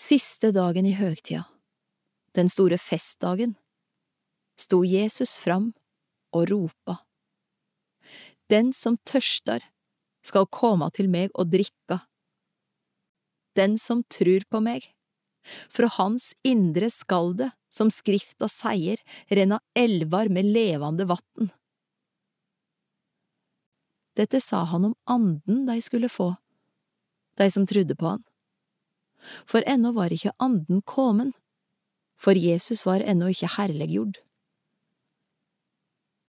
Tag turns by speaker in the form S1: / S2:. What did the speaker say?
S1: Siste dagen i høgtida, den store festdagen, sto Jesus fram og ropa. Den som tørstar, skal koma til meg og drikka. Den som trur på meg, fra hans indre skal det, som skrifta seier, renna elvar med levande vatten. Dette sa han om anden de skulle få, de som trodde på han. For ennå var ikke anden komen, for Jesus var ennå ikke herliggjord.